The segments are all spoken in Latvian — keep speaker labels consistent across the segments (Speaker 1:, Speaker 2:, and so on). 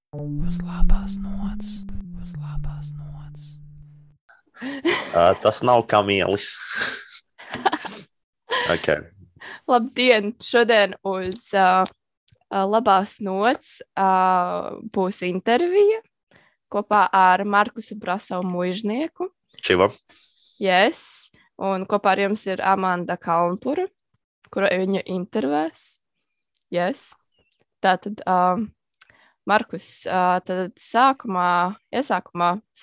Speaker 1: Uz labās nots, uz labās nots.
Speaker 2: Tas nav kamielis. Okay.
Speaker 3: Labdien! Šodien uz labās nots būs intervija kopā ar Markusu Brasavu muižnieku.
Speaker 2: Čiva.
Speaker 3: Yes. Un kopā ar jums ir Amanda Kalnpura, kura viņa intervēs. Yes. Tātad, Markus, tad iesākumā es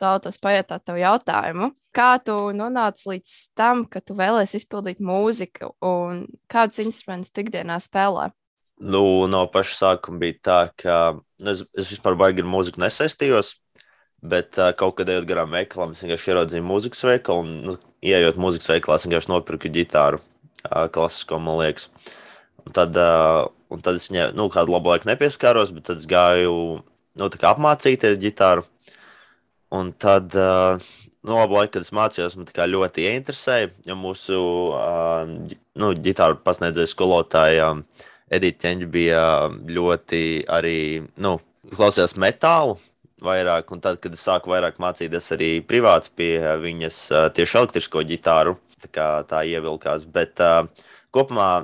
Speaker 3: vēlētos pajautāt tev jautājumu. Kā tu nonāci līdz tam, ka tu vēlēsi izpildīt mūziku un kādus instrumentus tu ikdienā spēlē?
Speaker 2: No paša sākuma bija tā, ka es vispār baigi ar mūziku nesaistījos, bet kaut kad ejot garām veikalam, es vienkārši ieraudzīju mūzikas veikalu un, ieejot mūzikas veikalā, es vienkārši nopirku ģitāru klasisko, man liekas. Un tad es viņai, kādu labu laiku nepieskāros, bet tad es gāju, tā kā apmācīties ģitāru. Un tad, labu laiku, kad es mācījos, man tā kā ļoti ieinteresēja, jo mūsu, ģitāru pasniedzēja skolotāja Edita Ķeņģa bija ļoti arī, klausījās metālu vairāk, un tad, kad es sāku vairāk mācīties arī privāti pie viņas tieši elektrisko ģitāru, tā ievilkās, bet kopumā,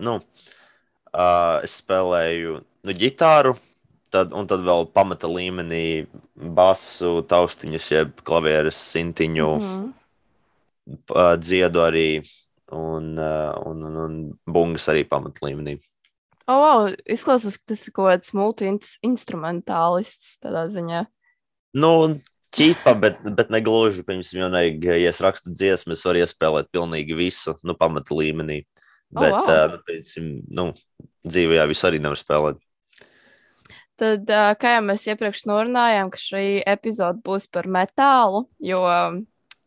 Speaker 2: es spēlēju ģitāru, un tad vēl pamata līmenī basu, taustiņus, jeb klavieres, sintiņu, dziedu arī, un bungas arī pamata līmenī.
Speaker 3: Izklausās, ka tas ir kaut kāds multi-instrumentālists tādā ziņā.
Speaker 2: Ķipa, bet negluži, piemēram, ja es rakstu dziesmu, es varu iespēlēt pilnīgi visu, pamata līmenī. Bet, dzīvē visu arī nevar spēlēt.
Speaker 3: Tad, kā jau mēs iepriekš norunājām, ka šī epizode būs par metālu, jo,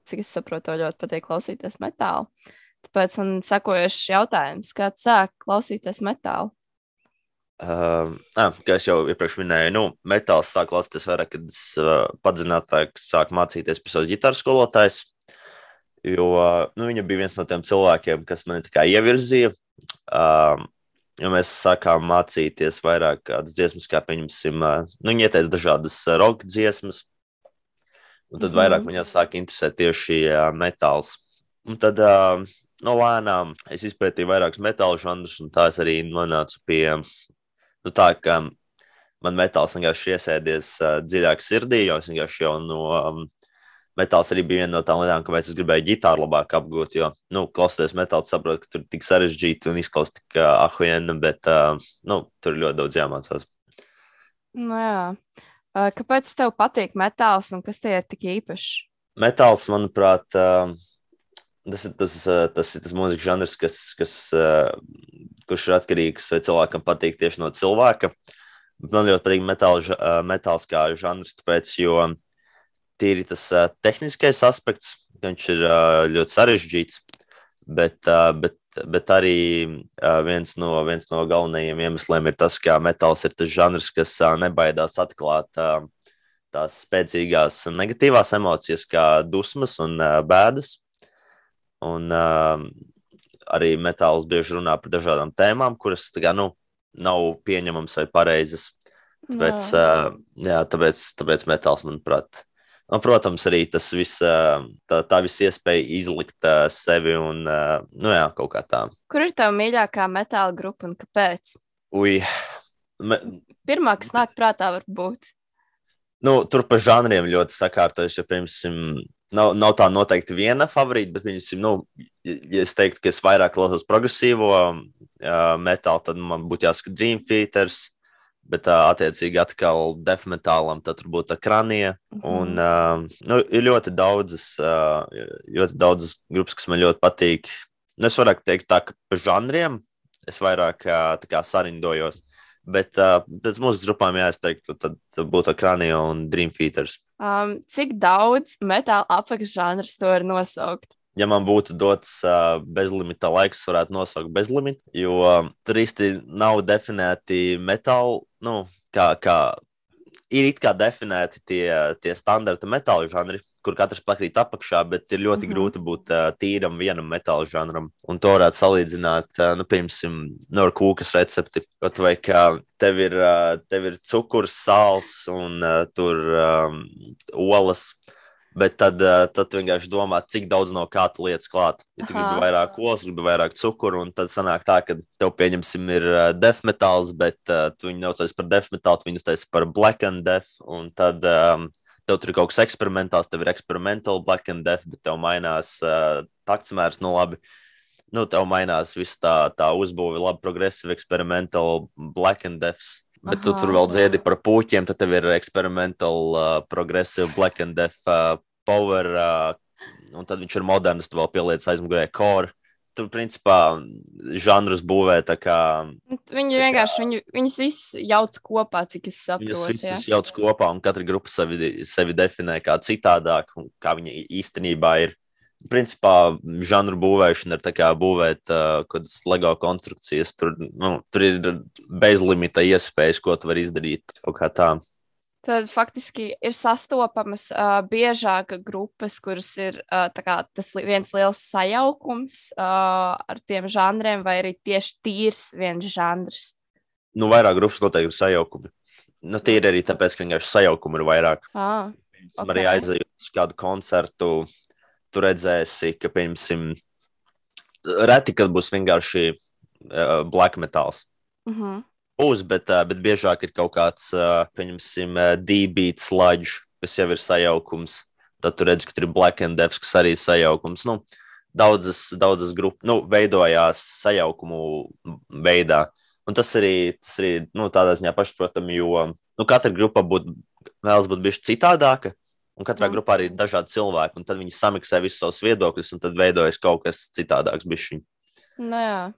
Speaker 3: cik es saprotu, ļoti patīk klausīties metālu. Tāpēc man sakojuši jautājums, kā sāk klausīties metālu?
Speaker 2: Kā es jau iepriekš minēju, metāls sāk klausīties vairāk, kad es padziļinātāk sāku mācīties pie savas ģitāras skolotājas. Jo viņa bija viens no tiem cilvēkiem, kas mani tā kā ievirzīja. Jo mēs sākām mācīties vairāk kādas dziesmas, kā pieņemsim, viņa ieteica dažādas roka dziesmas. Un tad vairāk man jau sāka interesēt tieši metāls. Un tad lēnām es izpētīju vairākus metālu žanrus, un tā es arī nonācu pie tā, ka man metāls vienkārši iesēdies dziļāk sirdī, jo es vienkārši jau no metāls arī bija viena no tām lietām, kāpēc es gribēju ģitāru labāk apgūt, jo, klausoties metālu, saprotu, ka tur ir tik sarežģīti un izklausās tik ahujena, bet, tur ir ļoti daudz jāmācās.
Speaker 3: Jā. Kāpēc tev patīk metāls un kas tie ir tik īpašs?
Speaker 2: Metāls, manuprāt, tas ir tas mūzikas žanrs, kurš ir atkarīgs, vai cilvēkam patīk tieši no cilvēka. Man ļoti patīk metāls kā žanrs, tāpēc, jo tīri tas tehniskais aspekts, viņš ir ļoti sarežģīts, bet arī viens no galvenajiem iemesliem ir tas, ka metāls ir tas žanrs, kas nebaidās atklāt tās spēcīgās negatīvās emocijas, kā dusmas un bēdas. Un arī metāls bieži runā par dažādām tēmām, kuras nav pieņemams vai pareizas. Tāpēc metāls, manuprāt, protams, arī tas viss, tā visa iespēja izlikt sevi un, kaut kā tā.
Speaker 3: Kur ir tava mīļākā metāla grupa un kāpēc? Pirmā, kas nāk prātā, var būt.
Speaker 2: Tur pa žanriem ļoti sakārtojuši, ja, piemēram, nav tā noteikti viena favorīta, bet, ja es teiktu, ka es vairāk klausos progresīvo metālu, tad man būtu jāsaka Dream Theaters. Bet, attiecīgi, atkal death metālam, tad tur būtu Kranija. Un ir ļoti daudzas grupas, kas man ļoti patīk. Es varētu teikt tā, ka pa žanriem es vairāk sarindojos. Bet pēc mūzikas grupām, es teiktu, tad būtu Kranija un Dream Theaters.
Speaker 3: Cik daudz metāla apakšžanrus to var nosaukt?
Speaker 2: Ja man būtu dots bezlimita laiks, varētu nosaukt bezlimitu, jo tur īsti nav definēti metāli, kā ir it kā definēti tie standarta metāla žanri, kur katrs pakrīt apakšā, bet ir ļoti grūti būt tīram vienam metāla žanram. Un to varētu salīdzināt, piemēram, ar kūkas recepti. Kaut vai kā tev ir cukurs, sāls un tur olas. Bet tad vienkārši domā, cik daudz no kā tu lietas klāt. Ja tu gribi vairāk olas, gribi vairāk cukuru, un tad sanāk tā, ka tev, pieņemsim, ir death metāls, bet tu viņu neucies par death metālu, tu viņu uztais par black and death, un tad tev tur ir kaut kas eksperimentāls, tev ir experimental black and death, bet tev mainās taktsmērs, labi. Tev mainās viss tā uzbūve, labi progressive experimental black and deaths. Bet tu tur vēl dziedi par puķiem, tad tev ir experimental, progressive, black and death, power, un tad viņš ir moderns, tu vēl pieliec aizmugurē core. Tur, principā, žanrus būvē tā kā...
Speaker 3: Viņi vienkārši, viņus visus jauc kopā, cik es saprotu.
Speaker 2: Viņus visus jauc kopā, un katra grupa sevi definē kā citādāk, un kā viņa īstenībā ir. Principā, žanru būvēšana ir tā kā būvēt kaut kādas LEGO konstrukcijas. Tur ir bezlimita iespējas, ko tu vari izdarīt kaut kā tā.
Speaker 3: Tad faktiski ir sastopamas biežāk grupas, kuras ir tas viens liels sajaukums ar tiem žanriem, vai arī tieši tīrs viens žanrs?
Speaker 2: Vairāk grupas noteikti ir sajaukumi. Tie ir arī tāpēc, ka vienkārši sajaukumi ir vairāk.
Speaker 3: Okay.
Speaker 2: Arī aizejot uz kādu koncertu, tu redzēsi, ka, piemēram, reti, kad būs vienkārši black metāls. Būs, bet biežāk ir kaut kāds, piemēram, D-beat sludge, kas jau ir sajaukums. Tad tu redzi, ka tur ir black and death, kas arī ir sajaukums. Daudzas grupas veidojās sajaukumu veidā. Un tas arī tādā ziņā pašprotami, jo katra grupa vēlas būt bišķi citādāka. Un katrā grupā arī ir dažādi cilvēki, un tad viņi samiksē visus savus viedokļus, un tad veidojas kaut kas citādāks bišķiņ.
Speaker 3: Jā.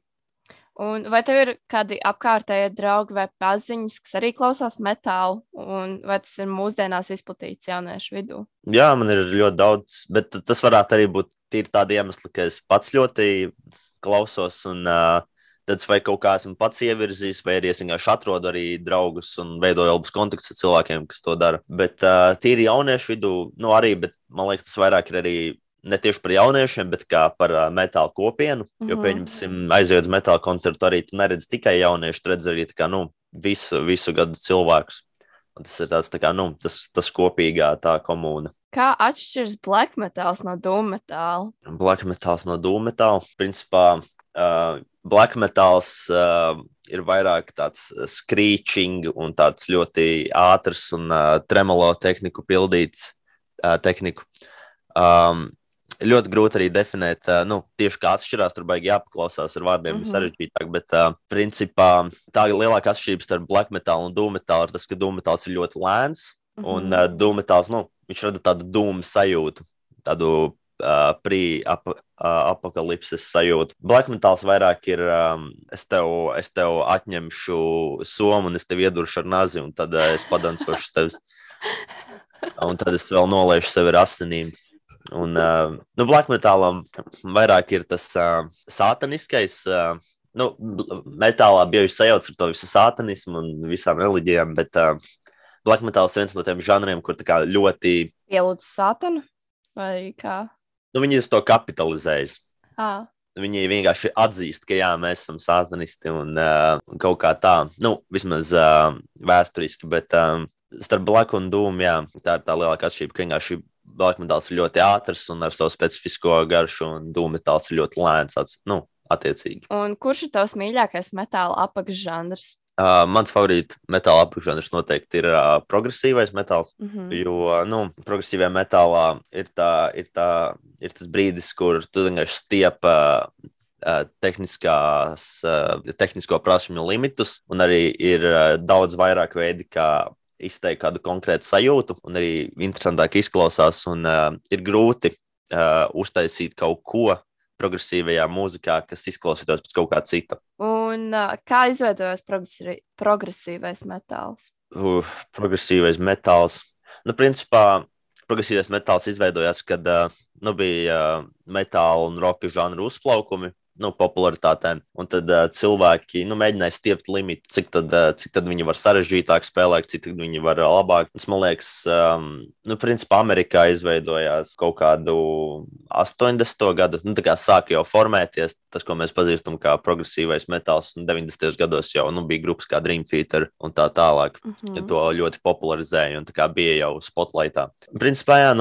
Speaker 3: Un vai tev ir kādi apkārtējie draugi vai paziņas, kas arī klausās metālu, un vai tas ir mūsdienās izplatīts jauniešu vidū? Jā,
Speaker 2: man ir ļoti daudz, bet tas varētu arī būt tīri tādi iemesli, ka es pats ļoti klausos, un tad vai kaut kā esmu pats ievirzījis, vai arī es vienkārši atrodu arī draugus un veidoju labus kontaktus ar cilvēkiem, kas to dara. Bet tīri jauniešu vidū, arī, bet man liekas, tas vairāk ir arī ne tieši par jauniešiem, bet kā par metālu kopienu. Jo, pieņemsim, aizejot uz metālu koncertu, arī tu neredzi tikai jauniešu, tu redzi arī tā kā, visu gadu cilvēkus. Un tas ir tāds, tā kā, tas kopīgā tā komūna.
Speaker 3: Kā atšķiras black metāls no doom metāla?
Speaker 2: Black metāls no doom metāla, principā, black metāls ir vairāk tāds screeching un tāds ļoti ātrs un tremolo tehniku pildīts tehniku. Ļoti grūti arī definēt, tieši kā atšķirās, tur baigi jāpaklausās ar vārdiem, sarežģītāk, bet principā tā lielākā atšķirība starp black metālu un doom metālu ir tas, ka doom metāls ir ļoti lēns, un doom metāls, viņš rada tādu doom sajūtu, tādu apokalipses sajūtu. Black metāls vairāk ir, es tev atņemšu somu un es tev ieduršu ar nazi, un tad es padancošu tevis. Un tad es vēl noliešu sevi ar asinīm. Un black metālam vairāk ir tas sātaniskais. Metālā bieži sajauc ar to visu sātanismu un visām reliģijām, bet black metāls ir viens no tiem žanriem, kur tā kā ļoti...
Speaker 3: Ielūdz sātanu? Vai kā?
Speaker 2: Viņi uz to kapitalizējas.
Speaker 3: Viņi
Speaker 2: vienkārši atzīst, ka jā, mēs esam sātanisti un kaut kā tā. Vismaz vēsturiski, bet starp black un doom, jā, tā ir tā lielākā atšķirība, ka vienkārši black metāls ir ļoti ātrs un ar savu specifisko garšu, un doom metāls ir ļoti lēns, attiecīgi.
Speaker 3: Un kurš ir tavs mīļākais metāla apakšžanrs?
Speaker 2: Mans favorīta metāla apakšžanrs noteikti ir progresīvais metāls, jo, progresīvajā metālā ir tas brīdis, kur tu vienkārši stiep tehnisko prasmju limitus, un arī ir daudz vairāk veidi, kā izteikt kādu konkrētu sajūtu, un arī interesantāk izklausās, un ir grūti uztaisīt kaut ko progresīvajā mūzikā, kas izklausītos pēc kaut kā cita.
Speaker 3: Un kā izveidojas progresīvais metāls?
Speaker 2: Progresīvais metāls. Principā, progresīvais metāls izveidojās, kad bija metāla un roka žanru uzplaukumi popularitātēm. Un tad cilvēki mēģināja stiept limitu, cik tad viņi var sarežģītāk spēlēt, cik tad viņi var labāk. Tas, man liekas, principā Amerikā izveidojās kaut kādu 80. gadu, tā kā sāka jau formēties, tas, ko mēs pazīstam kā progresīvais metāls, un 90. gados jau bija grupas kā Dream Theater un tā tālāk. To ļoti popularizēja un tā kā bija jau spotlightā. Principā, jā,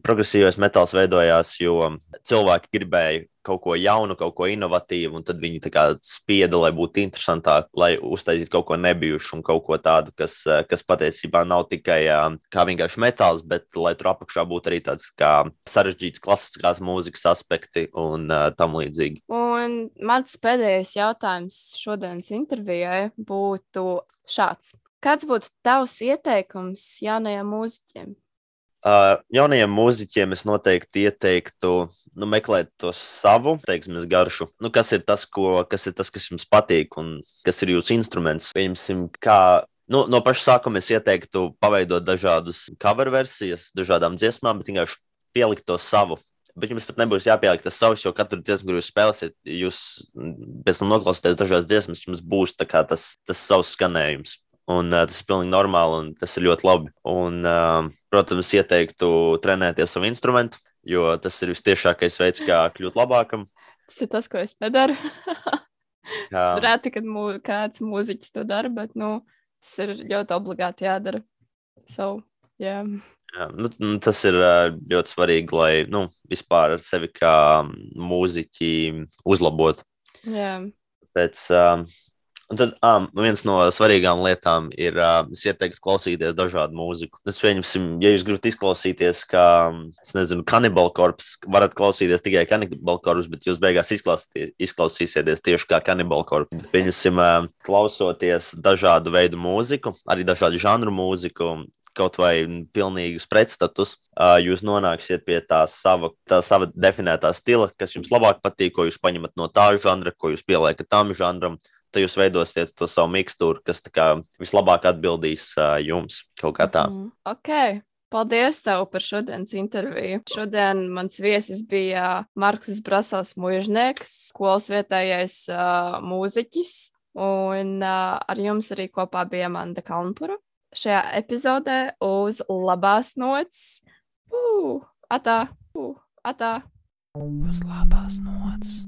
Speaker 2: progresīvais metāls veidojās, jo cilvēki gribēja kaut ko jaunu, kaut ko inovatīvu, un tad viņi tā kā spieda, lai būtu interesantāk, lai uztaisītu kaut ko nebijušu un kaut ko tādu, kas patiesībā nav tikai kā vienkārši metāls, bet lai tur apakšā būtu arī tāds kā sarežģīts klasiskās mūzikas aspekti un tam līdzīgi.
Speaker 3: Un mans pēdējais jautājums šodienas intervijai būtu šāds. Kāds būtu tavs ieteikums jaunajiem mūziķiem?
Speaker 2: Jaunajiem mūziķiem es noteikti ieteiktu meklēt to savu, garšu. Kas ir tas, kas jums patīk un kas ir jūsu instruments? Pieņemsim, no paša sākuma es ieteiktu paveidot dažādus cover versijas, dažādām dziesmām, bet vienkārši pielikt to savu. Bet jums pat nebūs jāpieliek tas savs, jo katru dziesmu, kur jūs spēlēsiet, jūs pēc tam noklausīties dažās dziesmas, jums būs tā kā tas savs skanējums. Un tas ir pilnīgi normāli, un tas ir ļoti labi. Un, protams, ieteiktu trenēties savu instrumentu, jo tas ir vistiešākais veids, kā kļūt labākam.
Speaker 3: Tas ir tas, ko es nedaru. Reti, kad kāds mūziķis to dara, bet tas ir ļoti obligāti jādara. Jā,
Speaker 2: tas ir ļoti svarīgi, lai vispār sevi kā mūziķi uzlabotu.
Speaker 3: Jā.
Speaker 2: Un tad viens no svarīgām lietām ir, es ieteiktu klausīties dažādu mūziku. Pieņemsim, ja jūs gribat izklausīties kā, Cannibal Corpse, varat klausīties tikai Cannibal Corpse, bet jūs beigās izklausīsieties tieši kā Cannibal Corpse. Pieņemsim, klausoties dažādu veidu mūziku, arī dažādu žanru mūziku, kaut vai pilnīgus pretstatus, jūs nonāksiet pie tā sava definētā stila, kas jums labāk patīk, ko jūs paņemat no tā žanra, ko jūs pieliekat tam žanram. Tad jūs veidosiet to savu mikstūru, kas tā kā vislabāk atbildīs jums kaut kā tā.
Speaker 3: Ok, paldies tev par šodienas interviju. Šodien mans viesis bija Markus Brasovs Muižnieks, skolas vietējais mūziķis, un ar jums arī kopā bija Amanda Kalnpura. Šajā epizodē uz labās nots. Atā.
Speaker 1: Uz labās nots.